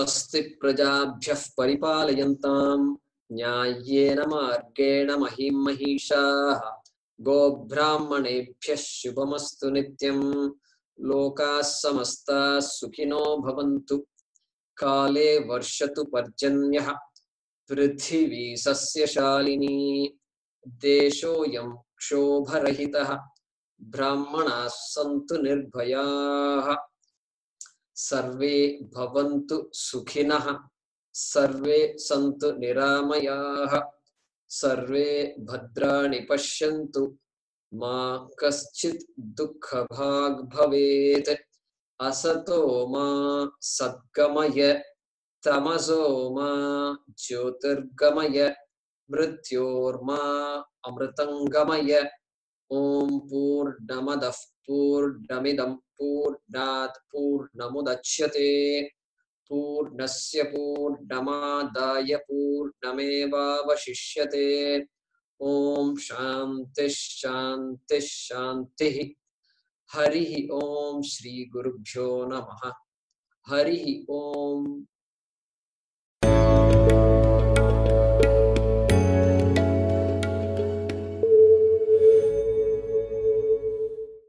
स्वस्ति प्रजाभ्यः परिपालयन्तां न्याय्येन मार्गेण महीं महिषाः गोब्राह्मणेभ्यः शुभमस्तु नित्यं लोकाः समस्ताः सुखिनो भवन्तु काले वर्षतु पर्जन्यः पृथिवी सस्यशालिनी देशोऽयं क्षोभरहितः ब्राह्मणाः सन्तु निर्भयाः सर्वे भवन्तु सुखिनः सर्वे सन्तु निरामयाः सर्वे भद्राणि पश्यन्तु मा कश्चित् दुःखभाग् भवेत् असतो मा सद्गमय तमसो मा ज्योतिर्गमय मृत्योर्मा अमृतंगमय ओम पूर्णमदः पूर्णमिदं पूर्णात् पूर्णमुदच्यते पूर्णस्य पूर्णमादाय पूर्णमेवावशिष्यते ओम शांति शांति शांति हरि ओम श्री गुरुभ्यो नमः हरि ओम